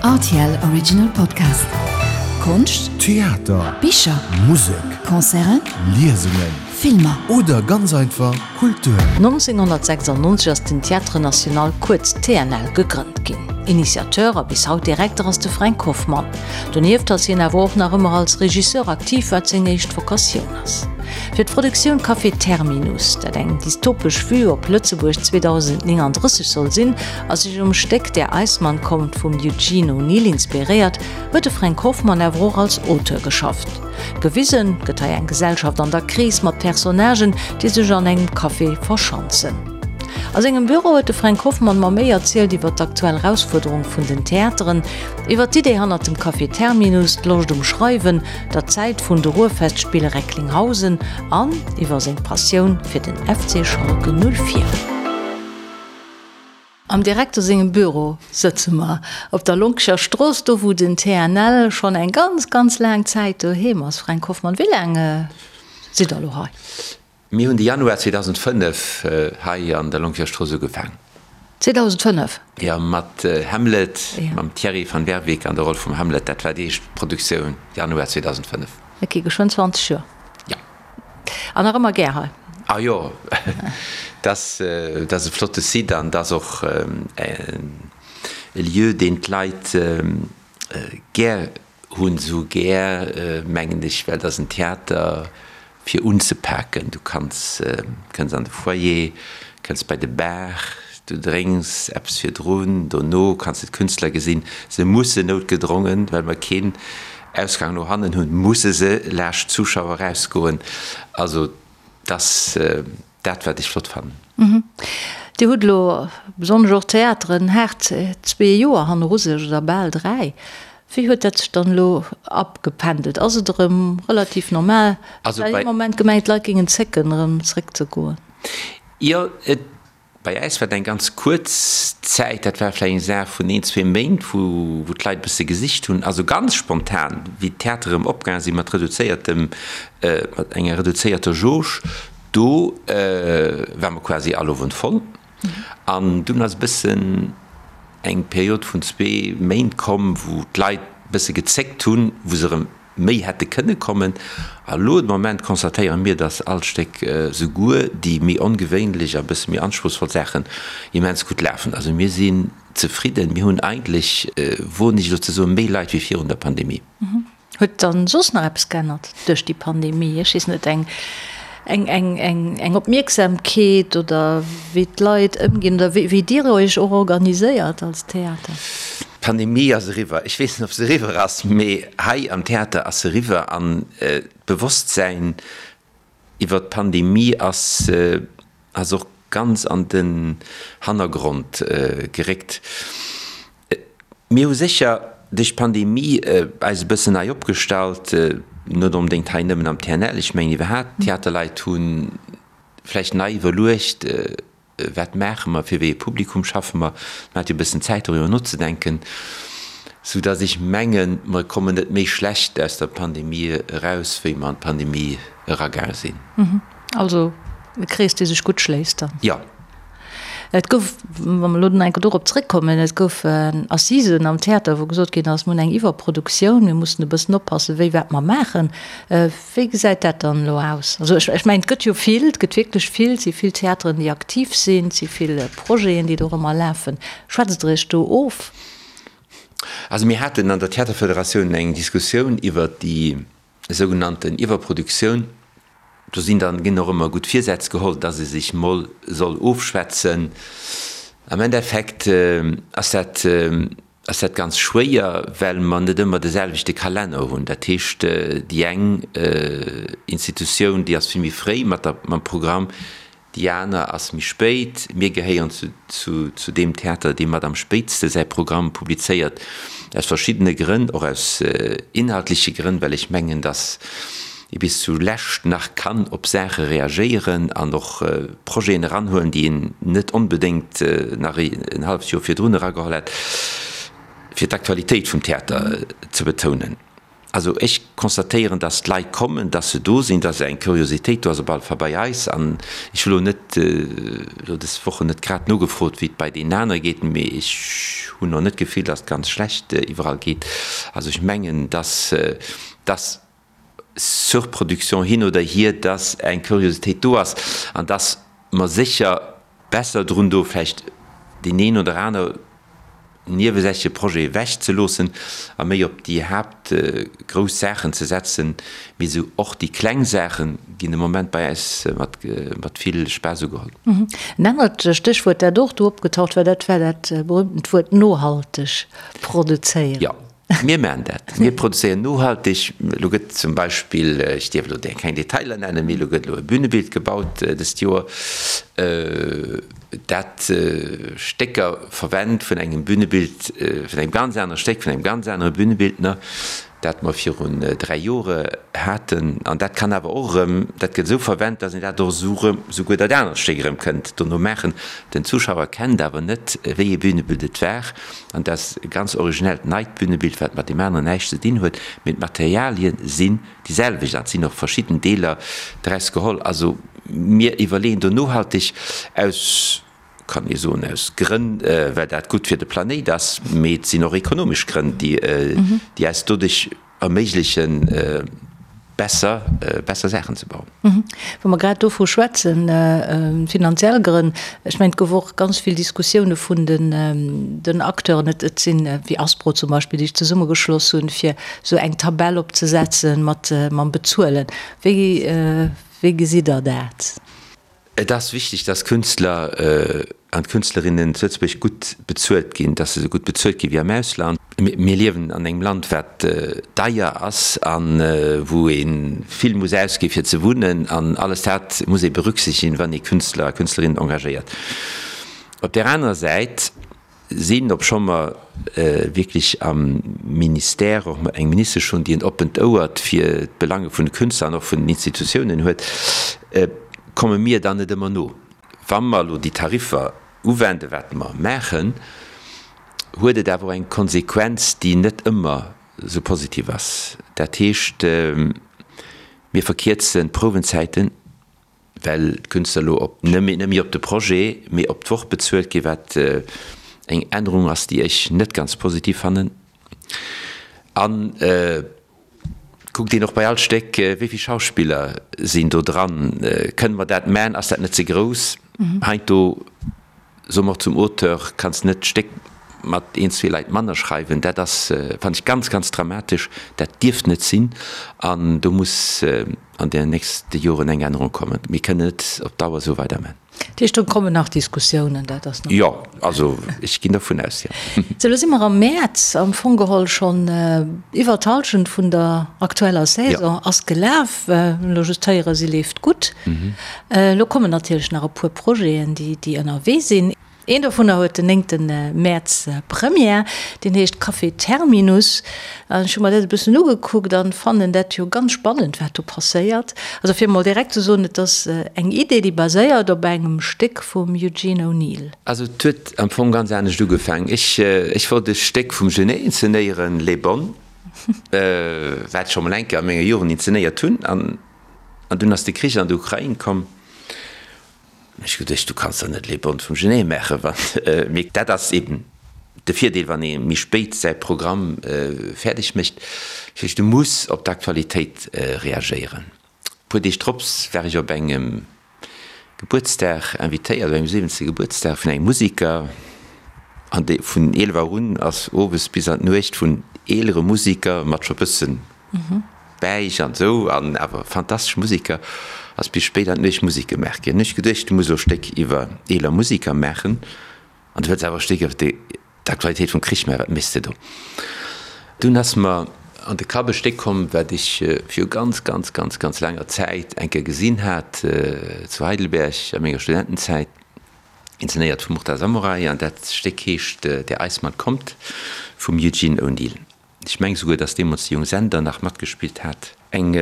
Rtl Original Podcast. Konscht, Theater, Bicher, Musek, Concerten, Liesungen, Filmer. Oder ganz einfach Kultur. 1996 ass den Théâtre National, kuerz TNL, gegrënnt ginn. Initiateur a bis haut Direkter ass de Fränk Hoffmann. Donieft ass hien awer och nach ëmmer als Regisseur aktiv, wat seng éischt Vokatioun ass. Fir d'Produktioun Café Terminus, dat eng dystopesch Vue op Lëtzebuerg 2039 soll sinn a sech um Stéck Der Eismann kommt vum Eugene O'Neill inspiréiert, huet de Fränk Hoffmann awer och als Auteur geschafft. Gewisen gëtt hei eng Gesellschaft an der Kris mat Personnagen, déi sech an engem Café verschanzen. A sengem Büro huet de Fränk Hoffmann mer méi erzielt iwwer d'aktuell Erausfuerderung vun den Theateren, iwwer d'Idee hannert dem Café Terminus, d'Loscht um Schreiwen, der Zäit vun de Ruhrfestspiele Recklinghausen an iwwer seng Passioun fir den FC Schalke 04. Am Direkter sengem Büro sëtze mer, op der Lonkecher Strooss, do wou den TNL schonn eng ganz, ganz laang Zäit doheem ass. Fränk Hoffmann, wéi laang sidd der elo hei? Mir hunn de Januar 2005 hei an der Lonkecher Strooss ugefaang. 2005? Jo, mat Hamlet, mam Thierry van Werveke an der Roll vum Hamlet. Dat war déi éischt Produktioun, Januar 2005. Ok, geschwënn 20 Joer. Jo. An nach ëmmer gär hei? Ah jo, dat ass e flotte Site an dat ass och e Lieu, deen d'Leit gär Hunn sou gär, mengen ech, well et ass en Theater fir unzepaken. Du kanns, kënns an de Foyer, kënns bei de Bar, du drénks eppes virdrun, dono kanns de d'Künstler gesinn. Se mussen noutgedrongen, well mer keen Ausgang no hannen hunn, musse se laascht d'Zuschauer erausgoen. Also, 't ass. Dat wat ech flott fannen. Dir hutt elo, besonnesch och d'Theateren, haart zwee Joer hanneru sech, oder bal dräi. Wéi huet dat sech dann elo abgependelt? Ass et erëm relativ normal? Ech hat ee Moment gemengt, d'Leit géingen zécken, erëm zeréckzegoen. Jo, et Bei äis war et eng ganz kuerz Zäit, dat war vläicht eng Saach vun een, zwee Méint, wou d'Leit e bësse gesicht hunn. Also ganz spontan, wéi d'Theatere erëm opgaange sinn, mat reduzéiertem, mat enger reduzéierter Jauge, do ware mer quasi all Owend voll. An dunn ass e bëssen eng Period vun zwee Méint komm, wou d'Leit e bësse gezéckt hunn, wou se erëm méi hätte kënne kommen. A lo de Moment constatéiere mir, dass all Stéck, souguer déi méi ongewéinlech a bësse méi anspruchsvoll Saachen, immens gutt lafen. Also mir sinn zefridden. Mir hunn eigentlech, woen ech elo ze soen, méi Leit wéi virun der Pandemie. Huet dann soss nach eppes geännert duerch déi Pandemie? Ech weess net, eng eng Opmierksamkeet oder wéi d'Leit ëmginn oder wéi Dir Iech och organiséiert als Theater? D'Pandemie ass eriwwer. Ech weess net, ob se eriwwer ass, mee hei am Theater ass se eriwwer an d'Bewosstsäin iwwer d'Pandemie ass ass och ganz an den Hannergrond geréckt. Mir hu sécher duerch d'Pandemie eis e bëssen nei opgestallt, net onbedéngt hei nëmmen am TNL, ech mengen iwwerhaapt d'Theaterleit hu vläicht nei iwwerluecht, wat maache mer, fir wéi e Publikum schaffe mer. Man hat jo e bëssen Zäit doriwwer nozedenken, soudass ech mengen, mer kommen net méi schlecht aus der Pandemie eraus, wéi mer an d'Pandemie eragaange sinn. Also e Krees, dee sech gutt schléisst dann. Jo. Et gouf, wa mer elo nach eng Kéier dorop zréckkommen, et gouf Assisen am Theater, wou gesot ginn ass, mir hunn eng Iwwerproduktioun, mir mussen e bëssen oppassen, wéi wat mer maachen. Wéi gesäit dat dann elo aus? Also ech mengen, et gëtt jo vill, et gëtt wierklech vill, et si vill Theateren, déi aktiv sinn, et si vill Projeten, déi dorëmmer lafen. Schwätzt Der Iech do of? Also mir haten an der Theaterfederatioun eng Diskussioun iwwert déi sougenannten Iwwerproduktioun. Do sinn dann, ginn och ëmmer gutt Virsätz geholl, dass ee sech mol soll ofschwätzen. Am Endeffekt ass dat, ass dat ganz schwéier, well mer net ëmmer de selwechte Kalenner hunn. Dat heescht, déi eng Institutioun, déi ass vill méi fréi mat der, mam Programm, Déi aner ass méi spéit. Mir gehéieren zu deem Theater, dee mat am spéitste säi Programm publizéiert, aus verschiddene Grënn, och aus inhaltleche Grënn, well ech mengen, datt ee bis zu lescht nach kann op Saache reagéieren an och Projeten eranhuelen, déi een net onbedéngt nach en halleft Joer virdrun erageholl hätt, fir d'Aktualitéit vum Theater ze betounen. Also ech constatéieren, dass d'Leit kommen, dass se do sinn, dass eng Curiositéit do ass, op alle Fall bei eis. An ech hu lo net, elo des Wochen net grad nogefrot, wéi et bei deenen anere geet, mee ech hunn och net d'Gefill, dass et ganz schlecht iwwerall geet. Also ech mengen, dass, dass Surproduction hin oder hier, dass eng Curiositéit do ass an dass mer sécher besser drun do vläicht deen een oder aner niewesächleche Projet ewech ze loossen a méi op déi Haapt grouss Saachen ze setzen. Mee esou och déi kleng Saache ginn de Moment bei äis mat mat vill Spaass ugeholl. En anert Stéchwuert, dat och do opgetaucht war, dat war dat berühmtent Wuert nohalteg produzéieren. Jo. Mir maachen dat. Mir produzéieren nohalteg. Elo gëtt zum Beispill, ech dierf elo keng Detailer nennen, mee elo gëtt elo e Bünebild gebaut dëst Joer, dat Stécker verwennt vun engem Bünebild, vun engem ganz anere Stéck, vun engem ganz anere Bünebildner, dat mer virun 3 Jore haten. An dat kann awer och erëm, dat gëtt esou verwennt, datt een dat och esou erëm, souguer dat anert Stéck erëm kënnt dono maachen. Den Zuschauer kennt awer net, wéi ee Bünebild et war. An dat ass e ganz originellt neit Bünebild, wat mat deem aneren näischt ze dinn huet, mee d'Materialie sinn déi selwecht an et sinn och verschidden Deeler draus geholl. Also mir iwwerleeën do nohalteg aus, kann ee soen, aus Grënn, well dat gutt fir de Planéit ass, mee et sinn och ekonomesch Grënn, déi eis doduerch erméiglechen, besser, besser Saachen ze bauen. Wa mer grad dovu schwätzen, finanziell Grënn, ech mengen, et gouf och ganz vill Diskussioune vun den Acteuren, et sinn, wéi Aspro zum Beispill, déi sech zesummegeschloss hunn, fir esou eng Tabell opzesetzen mat mam Bezuelen. Wéi, wéi gesitt Der dat? Et ass wichteg, dass Künstler an Künstlerinnen zu Lëtzebuerg gutt bezuelt ginn, dass se esou gutt bezuelt gi wéi am Ausland. Mir liewen an engem Land, wat deier ass a wou ee vill muss ausgi fir ze wunnen an alles dat muss ee berücksichtigen, wann ee Künstler a Künstlerinnen engagéiert. Op där anerer Säit sinn, obscho mer wierklech am Ministère och eng Ministesch hunn, déi en oppent Ouert fir d'Belange vun de Künstler an och vun den Institutiounen huet, komme mir dann net ëmmer no. Wa mer elo déi Tariffer uwenden, wat mer maachen, huet et awer och eng Konsequenz, déi net ëmmer esou positiv ass. Dat heescht, mir verkierzen d'Prouwenzäiten. well d'Künstler elo op net méi op de Projet, mee op d'Woch bezuelt ginn, wat eng Ännerung ass, déi ech net ganz positiv fannen. An kuckt een och bei all Stéck, wéi vill Schauspiller sinn do dran, kënne mer dat man, ass dat net ze grouss? Heiansdo Soe mer och zum Auteur, kanns net d'Stéck mat een, zwee Leit manner schreiwen. Dat ass, fannen ech, ganz, ganz dramatesch. Dat dierft net sinn. An do muss an den nächste Joren eng Ännerung kommen. Mir kënnen net op Dauer esou weiderman. Dat heescht, do kommen nach Diskussiounen, dat ass nach. Jo, also ech ginn dervun aus, jo. Sou, elo si mer am Mäerz, am Fong geholl schonn iwwer d'Hallschent vun der aktueller Saison ass gelaf. Elo just héieren, si leeft gutt. Elo kommen natierlech nach e puer Projeten, déi ënnerwee sinn. Een dovunner huet den néngte Mäerz Première, deen heescht Café Terminus. An ech hu mer dat e bëssen ugekuckt an fannen dat jo ganz spannend, wat do passéiert. Also fir emol direkt ze soen, et ass eng Idee, déi baséiert op engem Stéck vum Eugene O'Neill. Also et huet am Fong ganz anescht ugefaangen. Ech, ech wollt e Stéck vum Genet inzenéieren, Les Bonnes, wat ech scho mol eng Kéier a menger Jugend inzenéiert hunn. An An dunn ass de Krich an der Ukrain komm. Ech hu geduecht, du kanns der net les Bonnes vum Genet maachen, wann, mee dat ass eben de Virdeel, wann ee méi spéit säi Programm fäerdeg mécht, du muss op d'Aktualitéit reagéieren. E puer Deeg drops war ech op engem Gebuertsdag invitéiert, op engem siwwenzte Gebuertsdag vun engem Musiker, an dee vun 11 Auer un ass owes bis an d'Nuecht vun eelere Musiker mat scho bëssen Bäich an esou, an awer fantastesch Musiker, ass bis spéit an d'Nuecht Musek gemaach ginn. Hunn ech geduecht, du muss elo e Stéck iwwer eeler Musiker maachen, an du wëlls awer e Stéck iwwer déi D'Aktualitéit vum Krich, mä wat méchs de do? Dunn ass mer an de Kapp e Stéck komm, wat ech viru ganz, ganz, ganz, ganz laanger Zäit eng Kéier gesinn hat, zu Heidelberg a menger Studentenzäit, inzenéiert vum Murta Samurai, an dat Stéck heescht Der Eismann kommt vum Eugene O'Neill. Ech meng souguer, dass deemools de Jung Sender nach matgespillt hat. Eng.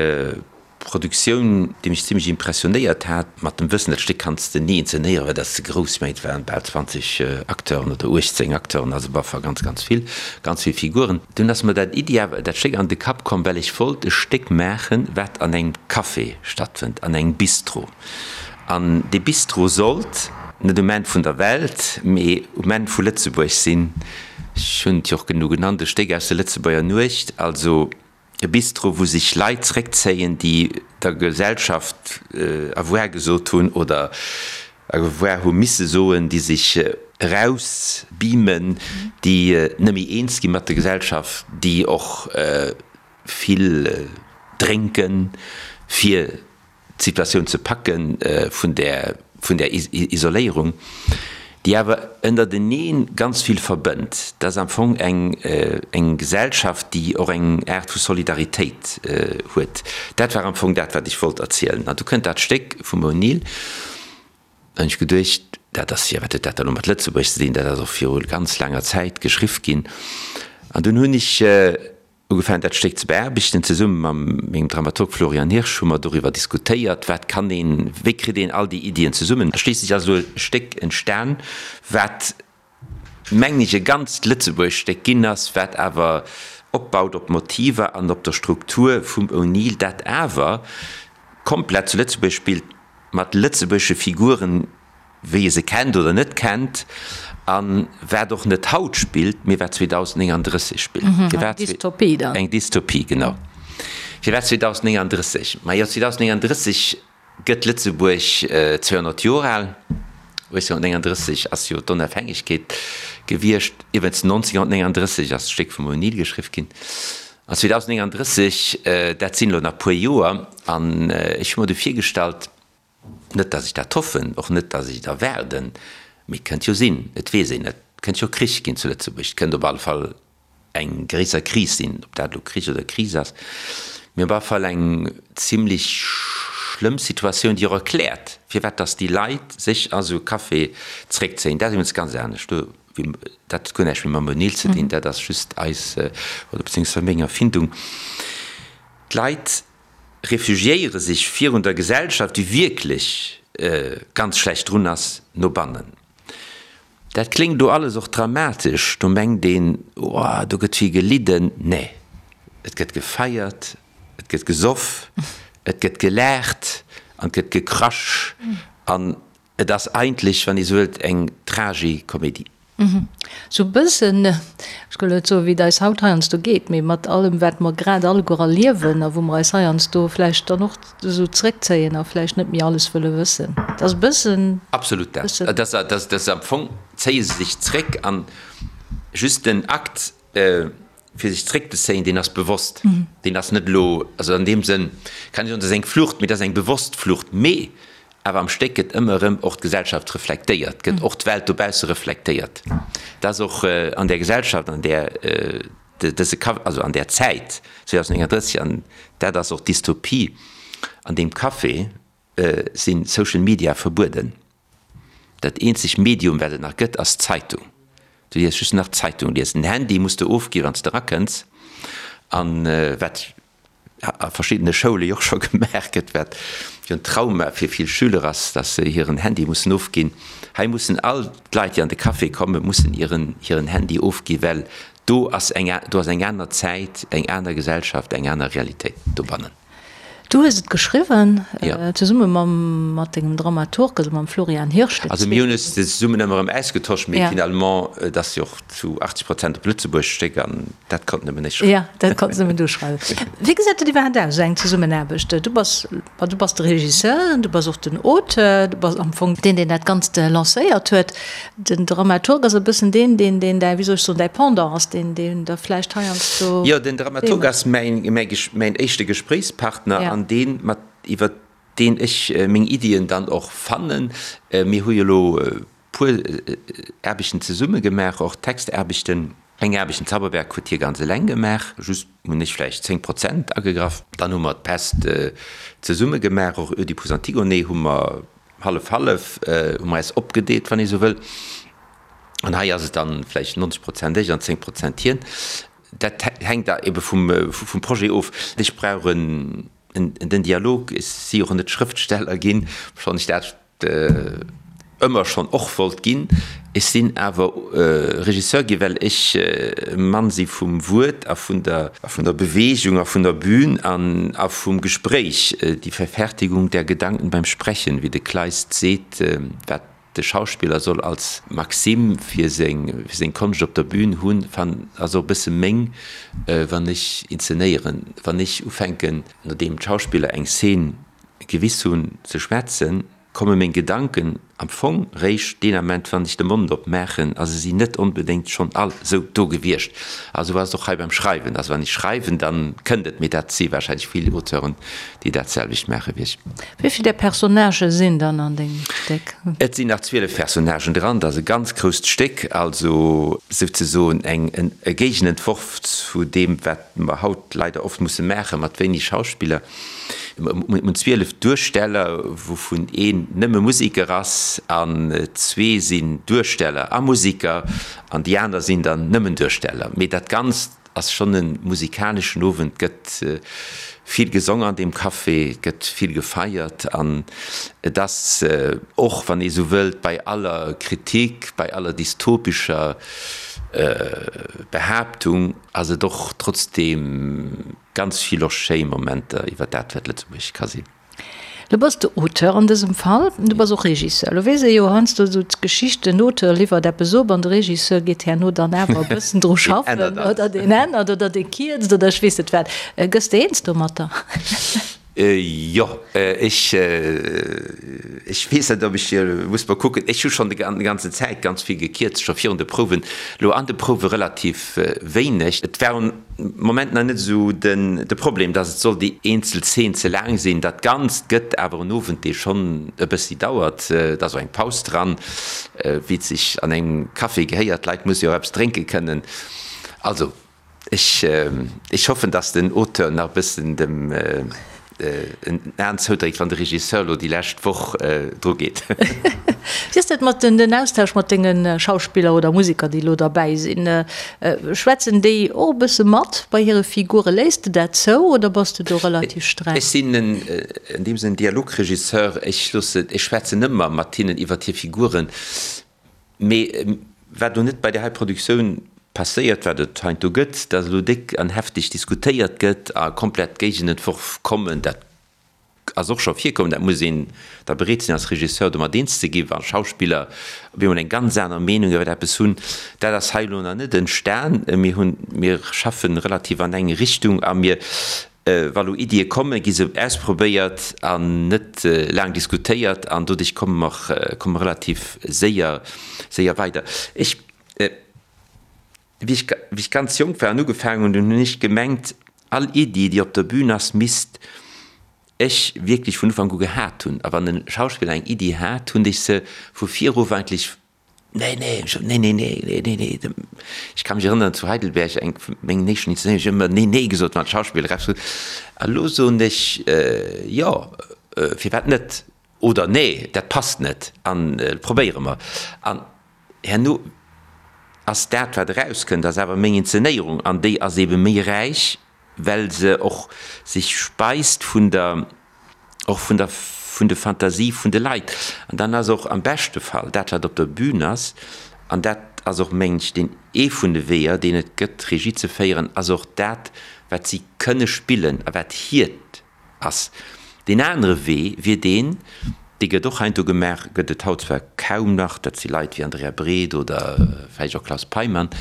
Produktioun, déi mech zimlech impressionéiert hat, mat dem Wëssen, dat Stéck kanns de ni inzenéieren, well dat ass ze grouss, mä et waren bal 20 Acteuren oder 18 Acteuren, also op alle Fall ganz, ganz vill, ganz vill Figuren. Dunn ass mer dat Iddi awer, dat Stéck an de Kapp komm, well ech wollt e Stéck maachen, wat an engem Café stattfënnt, an engem Bistro. An dee Bistro sollt net um Enn vun der Welt, mee um Enn vu Lëtzebuerg sinn. Ech hunn et jo och genu genannt, e Stéck aus der Lëtzebuerger Nuecht, also e Bistro, wou sech Leit zréckzéien, déi der Gesellschaft Au revoir gesot hunn oder Au revoir hu misse soen, déi sech erausbeamen, déi net méi eens gi mat der Gesellschaft, déi och vill drénken, fir d'Situatioun ze packe vun där, vun där Isoléierung, déi awer ënnertenee ganz vill verbënnt. Dat ass am Fong eng, eng Gesellschaft, déi och eng Aart vu Solidaritéit huet. Dat war am Fong dat, wat ech wollt erzielen. An du kënnt dat Stéck vum O'Neill. An ech geduecht, dat ass jo, wat huet dat da lo mat Lëtzebuerg ze dinn? Dat ass och viru ganz laanger Zäit geschriww ginn. An dunn hunn ech Ugefaangen dat Stéck ze beaarbechten. Zesumme mam mengem Dramaturg Florian Hirsch hu mer doriwwer diskutéiert, wat kann een, wéi kritt een all déi Iddien zesummen. A schliisslech ass elo e Stéck entstan, wat mengen ech e ganzt lëtzebuergescht Stéck ginn ass, wat awer opbaut op Motiver an op der Struktur vum O'Neill, dat awer komplett zu Lëtzebuerg spillt, mat lëtzebuergesche Figuren, wéi e se kennt oder net kennt, a wat och net haut spillt, mee wat 2039 spillt. Eng Dystopie dann. Eng Dystopie, genau. Firwat 2039? Majo, 2039 gëtt Lëtzebuerg 200 Joer al. 1839 ass jo d'Onafhängegkeet gewiescht. Iwwregens 1939 ass d'Stéck vum O'Neill geschriww ginn. An 2039, dat sinn elo nach puer Joer, an ech hu mer du virgestallt, Net, datt ech dat hoffen, och net, datt ech et erwaarden, mee et kënnt jo sinn, et weess een net, et kënnt jo Krich ginn zu Lëtzebuerg, et kënnt op alle Fall eng gréisser Kris sinn, ob dat elo Krich oder Kris ass, mee op alle Fall eng zimlech schlëmm Situatioun, déi och erkläert, firwat datt déi Leit sech a sou e Café zréckzéien. Dat ass iwwregens ganz anescht, do, dat huet guer näischt méi mam O'Neill ze dinn, dat ass just eis oder beziéungsweis meng Erfindung. D'Leit refugiéiere sech virun der Gesellschaft, déi wierklech ganz schlecht drun ass, no bannen. Dat kléngt do alles och dramatesch, do mengt een, oh, do gëtt vill gelidden. Nee, et gëtt gefeiert, et gëtt gesoff, et gëtt gelaacht an et gëtt gekrasch an Et ass eigentlech, wann ee sou wëllt, eng Tragikomédie. Sou e bëssen, ech gëll net soen, wéi et eis haut heiansdo geet, mee mat allem, wat mer grad alleguer erliewen a wou mer eis heiansdo vläicht dann och esou zréckzéien a vläicht net méi alles wëlle wëssen. Et ass e bëssen. Absolut dat. Et ass, dat ass am Fong zéie se sech zréck an just den Akt, fir sech zréckzezéien, deen ass bewosst. Deen ass net elo, also an deem Sënn kann ee soen, dat ass eng Flucht, mee dat ass eng bewosst Flucht. Mee Awer am Stéck gëtt ëmmer erëm och d'Gesellschaft reflektéiert, gëtt och d'Welt dobausse reflektéiert. Dat ass och an där Gesellschaft, an där dëse Café, also an där Zäit 2039, an dat ass och d'Dystopie, an deem Café si Social Media verbueden. Dat eenzeg Medium, wat et nach gëtt, ass d'Zeitung. Du dierfs just nach d'Zeitung liesen. Den Handy muss de ofgi wann s de erakënns. An wat a verschiddene Schoule jo och scho gemaach gëtt, wat jo en Trauma fir vill Schüler ass, dass se hiren Handy mussen ofginn. Hei mussen all d'Leit, déi an de Café kommen, mussen hiren hiren Handy ofginn, well do ass eng do ass eng aner Zäit, eng aner Gesellschaft, eng aner Realitéit dobannen. Du hues et geschriwwen, zesumme mam mat dengem Dramaturg, also mam Florian Hirsch. Also mir hunn es zesummen ëmmer erëm ausgetosch, mee finalement, et ass jo och zu 80 Prozent op Lëtzebuerg Stéck an dat konnt nëmmen ech schreiwen. Jo, dat konns nëmmen du schreiwen. Wéi gesäit dat iwwerhaapt aus, esou eng Zesummenaarbecht? Du bass, ma du bass de Regisseur, du bass och den Auteur, du bass am Fong deen, deen dat Ganzt lancéiert huet. Den Dramaturg ass e bëssen deen, deen, deen däi, wéi soll ech soen, däi Pendant ass, deen, deen der vläicht heiansdo. Jo, den Dramaturg ass mäin, mäi, mäin éischte Gespréichspartner an deen, mat, iwwer deen ech meng Iddien dann och fannen. Mir hu jo elo puer Aarbechten zesumme gemaach, och Textaarbechten. Eng Aarbecht, den Zauberberg, huet hie ganz eleng gemaach, just hunn ech vläicht 10 Prozent agegraff. Dann hu mer d'Pest zesumme gemaach, och Oedipus Antigone hu mer hallef-hallef, hu mer eis opgedeelt, wann ee sou wëll. An hei ass et dann vläicht 90 Prozent ech an 10 Prozent hien. Dat hänkt da ebe vum Projet of. Ech brauch en. Den Dialog, ech si och net Schrëftsteller ginn, obschonn ech dat ëmmer schonn och wollt ginn. Ech sinn awer Regisseur ginn, well ech e Mann si vum Wuert a vun der vun der Beweegung a vun der Bühn an a vum Gespréich, die Verfertigung der Gedanken beim Sprechen, wéi de Kleist seet, wat de Schauspiller soll als Maxime fir seng fir seng Konscht op der Bühn hunn, fan ass och e bësse meng, wann ech inzenéieren, wann ech ufänken, nodeem d'Schauspiller eng Szene gewiss hunn, ze schwätzen, komme meng Gedanken am Fong réischt deen Ament, wann ech de Mond op maachen, a se sinn net onbedéngt schonn all esou do gewiescht. A sou ass et och hei beim Schreiwen. Also wann ech schreiwen, da kënnt et, mee dat si wahrscheinlech vill Auteuren, déi dat selwecht maache wéi ech. Wéi vill där Personnagë sinn dann an dengem Stéck? Et sinn nach 12 Personnagen dran. Dat ass e ganz grousst Stéck, also souzesoen eng e Géigenentworf zu deem, wat mer haut leider oft musse maache mat wéineg Schauspiller. Mir hunn 12 Duersteller, wouvun een nëmme Museker ass an zwee sinn Duersteller a Museker an déi aner sinn dann nëmmen Duersteller. Mee dat Ganzt Ass schonn e musikaleschen Owend, gëtt vill gesong an deem Café, gëtt vill gefeiert an et ass och, wann ee sou wëllt, bei aller Kritik, bei aller dystopescher Behaaptung, ass et och trotzdeem ganz vill och schéi Momenter iwwer dat, wat Lëtzebuerg ka sinn. Lo bass de Auteur an dësem Fall, du bass och Regisseur. Lo weess ee jo heiansdo esou d'Geschicht, den Auteur liwwert eppes op an de Regisseur geet herno dann awer e bëssen dru schaffen oder deen ännert oder dee kierzt oder ech weess net wat. Gëss de eens domatter? Jo, ech, ech weess net, ob ech, muss mol kucken. Ech hu schonn déi ganzen Zäit ganz vill gekierzt, scho virun de Prouwen, lo an de Prouwe relativ wéineg. Et war un. Moment nach net esou den de Problem, dass et soll déi eenzel Zeen ze laang sinn. Dat Ganzt gëtt awer en Owend, dee schonn e bëssi dauert. Et ass och eng Paus dran, wéi et sech an engem Café gehéiert. D'Leit musse jo och eppes drénke kënnen. Also ech ech hoffen, dass den Auteur nach e bëssen dem en Aen zoudréckt, wann de Regisseur elo déi lescht Woch dru geet. Wéi ass dat mat den Austausch mat denge Schauspiller oder Museker, déi elo derbäi sinn? Schwätzen déi och e bësse mat bei hire Figure? Léiss de dat zou oder bass de do relativ streng? Ech sinn an deem Sënn Dialogregisseur. Ech loosse, ech schwätzen ëmmer mat hinnen iwwert hir Figuren. Mee wat elo net bei där hei Produktioun passéiert, wat et heiansdo gëtt, datt elo déck an hefteg diskutéiert gëtt a komplett Géigenentworf kommen, dat ass och scho virkomm. Dat muss een da bereet sinn als Regisseur domat eens ze ginn, wa Schauspiller op eemol eng ganz aner Meenung iwwer eppes hunn. Dat ass hei elo nach net entstan. Mir hunn, mir schaffen relativ an eng Richtung a mir Wa lo Iddie kommen, gi se ausprobéiert an net laang diskutéiert an doduerch komme mer, komme mer relativ séier, séier weider. Ech, wéi ech, wéi ech ganz jonk war an ugefaangen hunn, dunn hunn ech gemengt, all Iddi, déi op der Bühn ass, misst ech wierklech vun Ufank u gehat hunn. A wann e Schauspiller eng Iddi hat, hunn ech se vu virof eigentlech Nee, nee, ech, nee, nee, nee, nee, nee, nee. Ech ka mech erënneren, zu Heidelberg, eng vun mengen éischten Inszenéierungen, ech hu ëmmer nee, nee gesot, wann d'Schauspiller eppes gesot hunn. A lo soen ech, jo, firwat net? Oder nee, dat passt net an probéiere mer. An herno ass dat, wat erauskënnt, ass awer meng Inszenéierung an déi ass eebe méi räich, well se och sech speist vun der, och vun der, vun de Fantasie vun de Leit. An dann ass och am beschte Fall dat, wat op der Bühn ass, an dat ass och, mengen ech, deen ee vun de Weeër, deen et gëtt, Regie ze féieren, ass och dat, wat si kënne spillen a wat hiert ass. Deen anere Wee wier deen, dee gëtt och heiansdo gemaach, gëtt et haut zwar kaum nach, dat si Leit wéi Andrea Breed oder vläicht och Claus Peymann,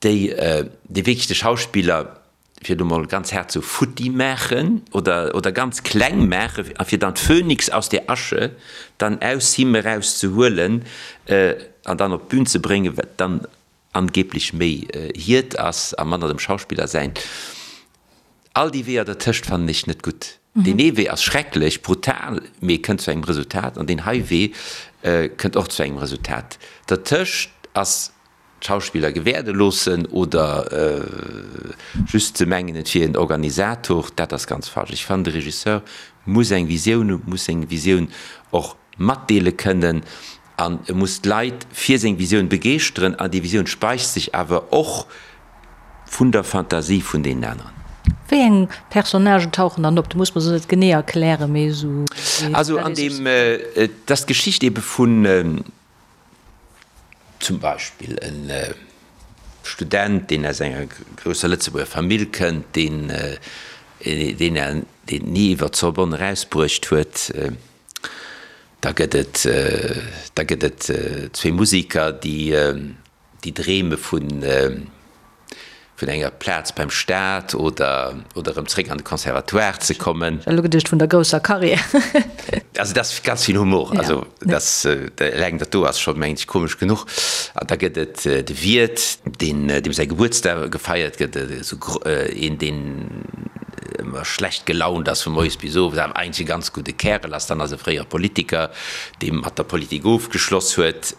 déi, déi wierklech de Schauspiller, fir elo mol ganz haart sou futti maachen oder, oder ganz kleng maachen a fir dann d'Phönix aus der Asche dann aus him eraus ze huelen an dann op d'Bün ze bréngen, wat dann angeblech méi hiert ass a manner dem Schauspiller säint. All déi Weeër dertëscht fannen ech net gutt. Deen ee Wee ass schrecklech, brutal, mee kënnt zu engem Resultat an deen hei Wee kënnt och zu engem Resultat. Dertëscht ass d'Schauspiller gewäerde loossen oder just ze mengen, et wier en Organisator, dat ass ganz falsch. Ech fannen, de Regisseur muss eng Visioun hunn, muss seng Visioun och matdeele kënnen an e muss d'Leit fir seng Visioun begeeschteren an déi Visioun speist sech awer och vun der Fantasie vun deenen aneren. Wéi eng Personnagen tauchen dann op? Du muss mer se net genee erklären, mee esou. Also an deem, et ass d'Geschicht ebe vun zum Beispill e Student, deen aus enger grousser Lëtzebuerger Famill kënnt, deen deen et ni iwwer d'Sorbonne erausbruecht huet. Da gëtt et da gëtt et zwee Musiker, déi déi dreeme vun vun enger Plaz beim Staat oder oder erëm zréck an de Conservatoire ze kommen. Ech hat elo geduecht vun der grousser Carrière. Also dat ass ganz vill Humor. Also dat eleng dat do ass scho mengen ech komesch genuch. An da gëtt et de Wiert, deen deem säi Gebuertsdag gefeiert gëtt, esou een deen ëmmer schlecht gelaunt ass vu moies bis owes, awer eigentlech e ganz gudde Kärel ass. Dann ass e fréiere Politiker, dee mat der Politik ofgeschloss huet.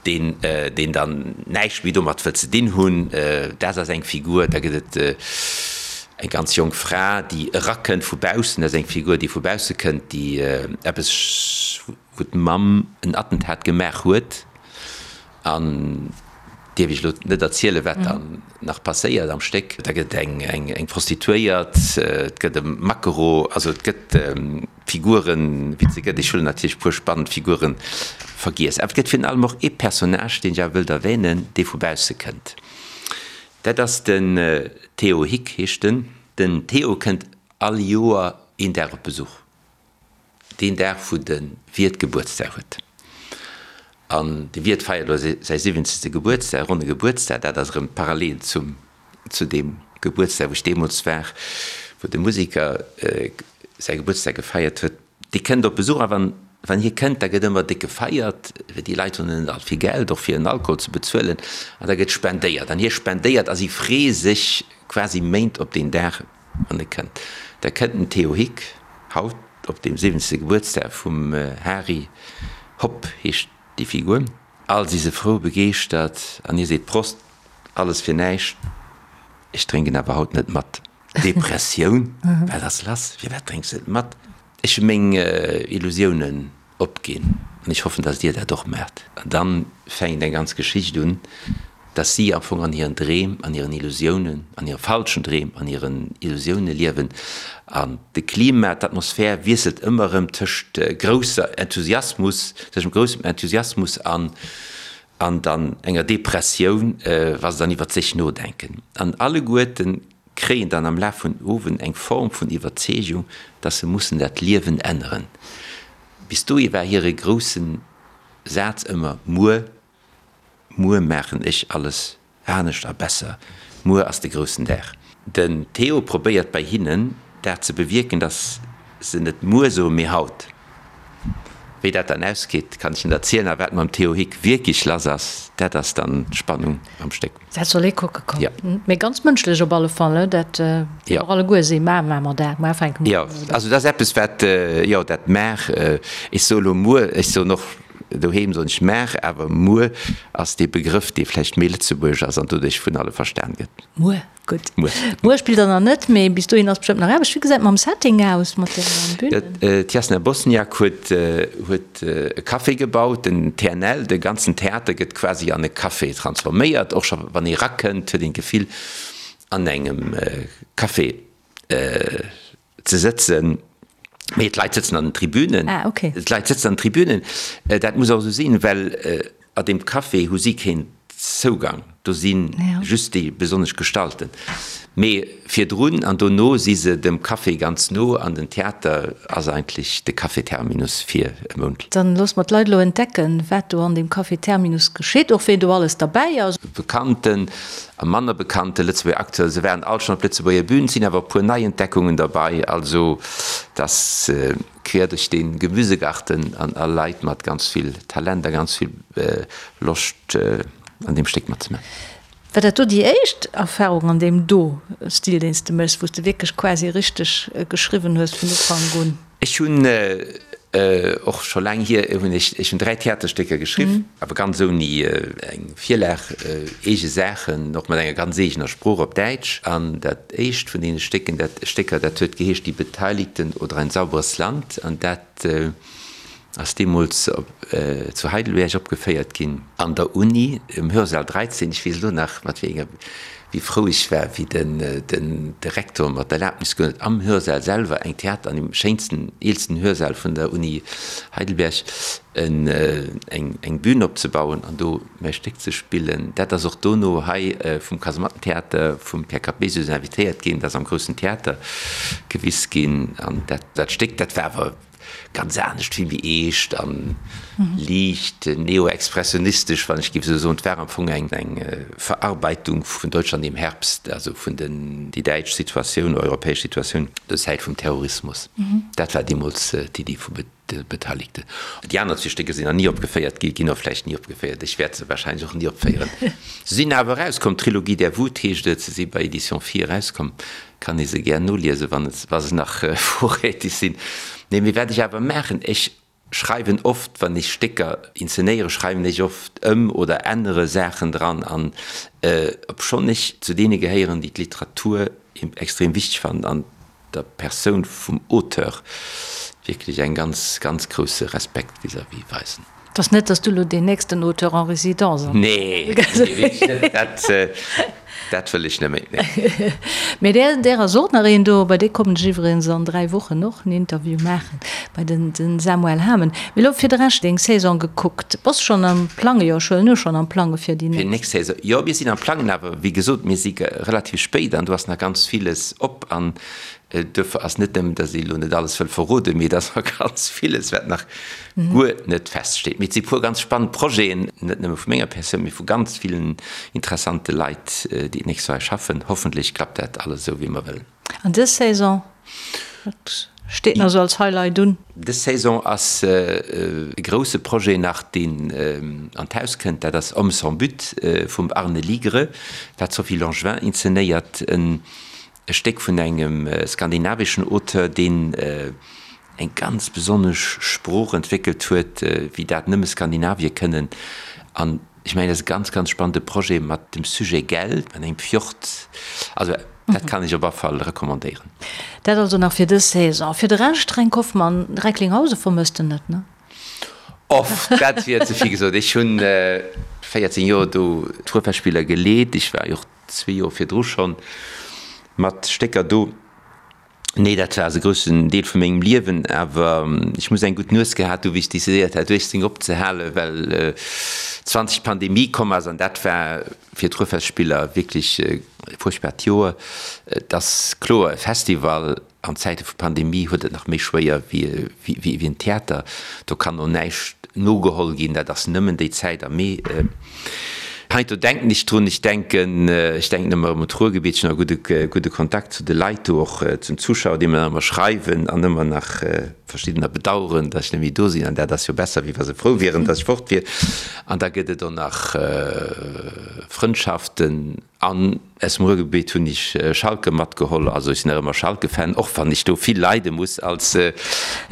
deen deen dann näischt méi domat wëllt ze dinn hunn, dat ass eng Figur. Da gëtt et eng ganz jonk Fra, déi erakënnt vu baussen, dat ass eng Figur, déi vu bausse kënnt, déi eppes, wou d'Mamm en Attentat gemaach huet an dierf ech elo net erzielen, wat dann nach passéiert am Stéck. Da gëtt et eng eng Prostituéiert, et gëtt e Maquereau, also et gëtt. Figuren, wéi et se gëtt. Ech hunn natierlech e puer spannend Figure vergiess. Awer et gëtt virun allem och ee Personnage, deen ech awer wëllt erwänen, dee vu bausse kënnt. Dat ass den Theo Hick, heescht en. Den Theo kënnt all Joer een Dag op Besuch, deen Dag, wou de Wiert Gebuertsdag huet. An de Wiert feiert elo säi siwwenzegste Gebuertsdag, ronne Gebuertsdag. Dat ass erëm parallel zum zu deem Gebuertsdag, wou ech deemools war, wou de Musiker säi Gebuertsdag gefeiert huet, dee kënnt op Besuch a wann, wann hie kënnt, da gëtt ëmmer déck gefeiert, well déi Leit hunn net all vill Geld, och fir en Alkohol ze bezuelen, an da gëtt spendéiert an hie spendéiert a si freeë sech quasi Méint op deen Dag, wann e kënnt. Da kënnt den Theo Hick, haut op deem siwwenzegste Gebuertsdag vum Hari, Hopp heescht déi Figur. All si se frou, begeeschtert an hie seet, Prost! Alles fir näischt, ech drénken awer haut net mat. Depressioun, wat ass lass, firwat drénks de net mat? Ech hu meng Illusiounen opginn an ech hoffen, dass dir dat och maacht. An dann fänkt eng ganz Geschicht un, dass si am Fong an hiren Dreem, an hiren Illusiounen, an hire falschen Dreem, an hiren Illusioune liewen. An de Klima, d'Atmosphär wiesselt ëmmer erëm tëscht grousser Enthusiasmus, tëschent groussem Enthusiasmus an an dann enger Depressioun, wa se dann iwwert sech nodenken. An alleguerten kréien dann am Laf vun Owend eng Form vun Iwwerzeegung, dass se mussen dat Liewen änneren. Bis dohi war hire grousse Saz ëmmer, Muer, muer maachen ech alles Anescht a besser. Muer ass de groussen Dag. Den Theo probéiert bei hinnen dat ze bewierken, dass se net muer soen, mee haut. Wéi dat dann ausgeet, kann ech net erzielen. A wat mam Theo Hick wierklech lass ass, dat ass dann d'Spannung am Stéck. Dat soll ee kucke kommen. Jo. Mee ganz mënschlech op alle Fall, ne? Dat jo och alleguer si mar maache mer dat, mar fänke mer un. Jo, also dat ass eppes wat, jo, dat maach, ech soe lo muer, ech soen och Doheem soen ech maach, awer muer ass dee Begrëff, dee vläicht méi lëtzebuergesch ass an doduerch vun alle verstan gëtt. Muer, gutt. Muer. Muer spillt der nach net, mee bis dohin ass bestëmmt nach Aarbecht. Wéi gesäit et mam Setting aus, mat de Bünen? D'Jasna Bosniak huet huet e Café gebaut, den TNL, de ganzen Theater gëtt quasi an e Café transforméiert. Och scho wann ee rakënnt, huet een d'Gefill an engem Café ze sëtzen, mee d'Leit sëtzen an den Tribünen. Ah, okay. D'Leit sëtzen an den Tribünen. Dat muss och esou sinn, well a deem Café hu si keen Zougang. Do si just déi besonnesch Gestalten. Mee virdrun an dono si se dem Café ganz no an den Theater ass eigentlech de Café Terminus fir e Mount. Dann loosse mer d'Leit elo entdecken, wat do an deem Café Terminus geschitt, och ween do alles derbäi ass. Bekannten A manner bekannte Lëtzebuerger Acteuren, se waren all schonn op Lëtzebuerger Bühn, et sinn awer e puer Neientdeckungen derbei, also dass quer duerch de Gemüsegarten an all Leit mat ganz vill Talent a ganz vill Loscht an deem Stéck matzemaachen. War dat do déi éischt Erfarung an deem do Stil, deen s de méchs, wou s de wierklech quasi richteg geschriwwen hues vun Ufank un? Ech hunn och scho laang hier, hunn ech, ech hunn 3 Theaterstécker geschriww, awer ganz ouni eng Virlag, eege Saachen, och mat enger ganz eegener Sprooch op Däitsch. An dat éischt vun deene Stécken, dat, Stécker, dat huet geheescht Die Beteiligten oder ein sauberes Land an dat ass deemools op, zu Heidelberg opgeféiert ginn, an der Uni, im Hörsaal 13, ech weess elo nach, mat wéi enger. Wéi frou ech war, wéi den Direktor mer d'Erlaabnis ginn huet, am Hörsaal selwer, eng Theater, an dem schéinsten, eelsten Hörsaal vun der Uni Heidelberg, eng Bühn opzebauen an do mäi Stéck ze spillen. Dat ass och dono hei vum Kasemattentheater, vum Pierre Capesius invitéiert ginn, dat ass am Groussen Theater gewis ginn. An dat Stéck, dat war awer Ganz anescht, vill méi eescht an liicht neo-expressionistesch, wann ech géif esou soen. Et war am Fong eng Verarbeitung vun Deutschland im Herbst, also vun den, déi däitsch Situatioun, europäesch Situatioun zur Zäit vum Terrorismus. Dat war deemools d'Iddi vu de Beteiligten. Déi aner zwee Stécker sinn nach ni opgeféiert gi, ginn och vläicht ni opgeféiert. Ech wäert se wahrscheinlech och ni opféieren. Se sinn awer erauskomm, Trilogie der Wut heescht et, se si bei Editions Phi erauskomm. Kann ee se gär noliesen, wann et, wa se nach vorrätig sinn. Nee, mee wat ech awer maachen, ech schreiwen oft, wann ech Stécker inzenéieren, schreiwen ech oft ëm oder ännere Saachen dran. An obschonn ech zu deene gehéieren, déi d'Literatur extrem wichteg fannen an der Persoun vum Auteur wierklech eng ganz, ganz grousse Respekt vis-à-vis weisen. Et ass net, dass du elo deen nächsten Auteur en résidence am. Nee, nee, wierklech net. Dat, dat wëll ech net méi, nee. Mee där, där ass och nach een do. Bei dee kommen ech iwwregens an 3 Wochen och en Interview maachen, bei den, den Samuel Hamen. Mee elo fir de Rescht, deng Saison gekuckt, bass schonn am Plange, jo, ech huelen u, schonn am Plange fir déi nächst. Fir déi nächst Saison, jo, mir sinn am Plangen, awer wéi gesot, mir si relativ spéit an do ass nach ganz villes op an Duerfir ass net nëmmen, datt ee elo net alles wëll verroden, mee et ass och ganz villes, wat nach guer net feststeet. Mee et si puer ganz spannend Projeten, net nëmme vu menger Persoun, mee vu ganz villen interessante Leit, déi d'nächst Joer hei schaffen. Hoffentlech klappt dat alles esou, wéi mer wëllen. An dës Saison, wat steet nach esou als Highlight un? Dës Saison ass e grousse Projet nach, deen an d'Haus kënnt. Dat ass Hommes sans but vum Arne Ligre, wat d'Sophie Langevin inzenéiert. E Stéck vun engem skandinaveschen Auteur, deen eng ganz besonnesch Sprooch entwéckelt huet, wéi dat nëmme Skandinavier kënnen. An ech mengen, dat ass e ganz, ganz spannende Projet mat dem Sujet Geld an engem Fjord. Also dat kann ech op alle Fall recommandéieren. Dat also nach fir dës Saison. Fir de Rescht, Fränk Hoffmann, Recklinghausen vermësst en net, ne? Off, dat wier ze vill gesot. Ech hunn 14 Joer do d'Ruhrfestspieler geleet. Ech war jo och zwee Joer virdru schonn mat Stécker do. Nee, dat war e groussen Deel vu mengem Liewen, awer ech muss eng gutt Nues gehat hu wéi ech decidéiert hat 18 opzehalen, well 20 d'Pandemie komm ass an dat war fir d'Ruhrfestspiller wierklech e fuerchtbart Joer. Et ass kloer, e Festival An Zäite vu Pandemie huet et nach méi schwéier wéi en Theater. Do kann och näischt nogeholl ginn, dat ass nëmmen déi Zäit am Mee. Heiansdo denken ech drun, ech denken, ech denken ëmmer erëm un d'Ruhrgebiet, ech hunn nach e gudde Kontakt zu de Leit do, och zum Zuschauer, déi mer nach ëmmer schreiwen an ëmmer nach verschiddener bedaueren, datt ech net méi do sinn. An dat ass jo besser, wéi wa se frou wieren, datt ech fort wier. An da gëtt et och nach Frëndschaften. An aus dem Ruhrgebiet hunn ech Schalke matgeholl. Also ech sinn nach ëmmer Schalke-Fan, och wann ech do vill leide muss als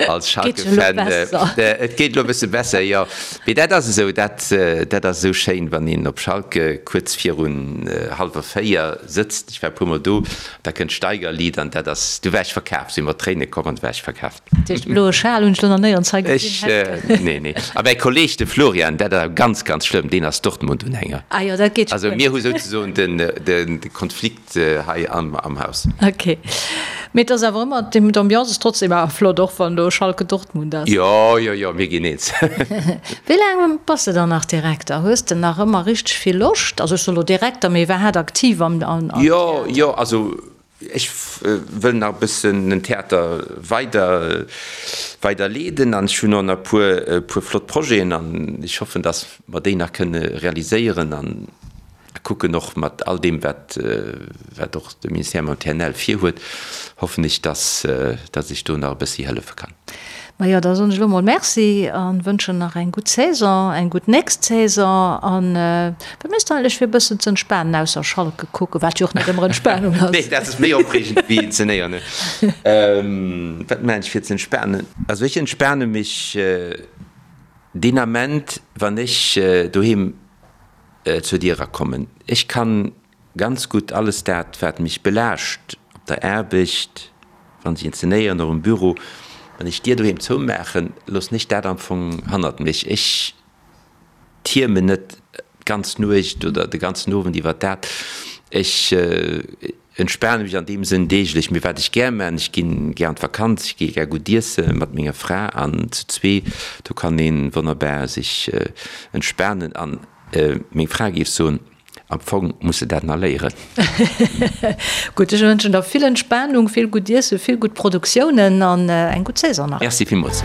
als Schalke-Fan. Et geet elo e bësse besser, jo. Mee dat ass esou, dat dat ass esou schéin, wann een op Schalke kuerz virun hallwer 4 sëtzt. Ech war e puermol do, da kënnt d'Steigerlied an dat ass, du war ech verkaf, si mer Tréine komm an du war ech verkaf. Dat heescht, de bloe Schal hunn ech lo nach néierens hei gesinn. Ech, nee, nee. A mäi Kolleeg, de Florian, dat ass ganz, ganz schlëmm, deen ass Dortmund-Unhänger. Ah jo, dat geet scho guer net. Also mir hu souzesoen den, den Konflikt hei am, am Haus. Ok. Mee et ass awer ëmmer, d'Ambiance ass trotzdem awer flott, och wann do Schalke-Dortmund ass. Jo, jo, jo, mir ginn eens. Wéi laang bass de dann nach Direkter? Hues de nach ëmmer richteg vill Loscht? Also ech soe lo Direkter, mee iwwerhaat aktiv am, am Theater? Jo, jo, also Ech wëll nach e bëssen den Theater weider weider leeden an ech hunn och nach e puer e puer flott Projeten an ech hoffen, datt mer déi nach kënne realiséieren an kucken och mat all deem wat wat och de Ministère mam TNL virhuet, hoffen ech, datt datt ech do nach e bëssi hëllefe kann. Majo, da soen ech elo mol Merci an wënschen nach eng gutt Saison, eng gutt nächst Saison. An wat méchs de eigentlech fir e bëssen ze entspanen, ausser Schalke kucken, wat jo och net ëmmer Entspanung ass? Nee, dat ass méi opreegend wéi inzenéieren. Wat maachen ech fir ze entspanen? Also ech entspane mech deen Ament, wann ech doheem zur Dier erakommen. Ech kann Ganz gutt alles dat, wat mech belaascht op der Aarbecht, wann ech inzenéieren, och um Büro, wann ech d'Dier doheem zoumaachen, loossen ech dat am Fong hannert mech. Ech tiermen net d'ganz Nuecht oder de ganzen Owend iwwert dat. Ech entspane mech an deem Sënn deeglech. Mee wat ech gär man, ech ginn gär an d'Vakanz, ech gi gär gutt iesse mat menger Fra an zu zwee, do kann ee wonnerbar sech entspanen. An meng Fra géif soen, Am Fong muss de dat nach léieren. Gutt, ech wënschen der vill Entspanung, vill gutt Iessen, vill gutt Produktiounen an eng gutt Saison nach. Merci villmools.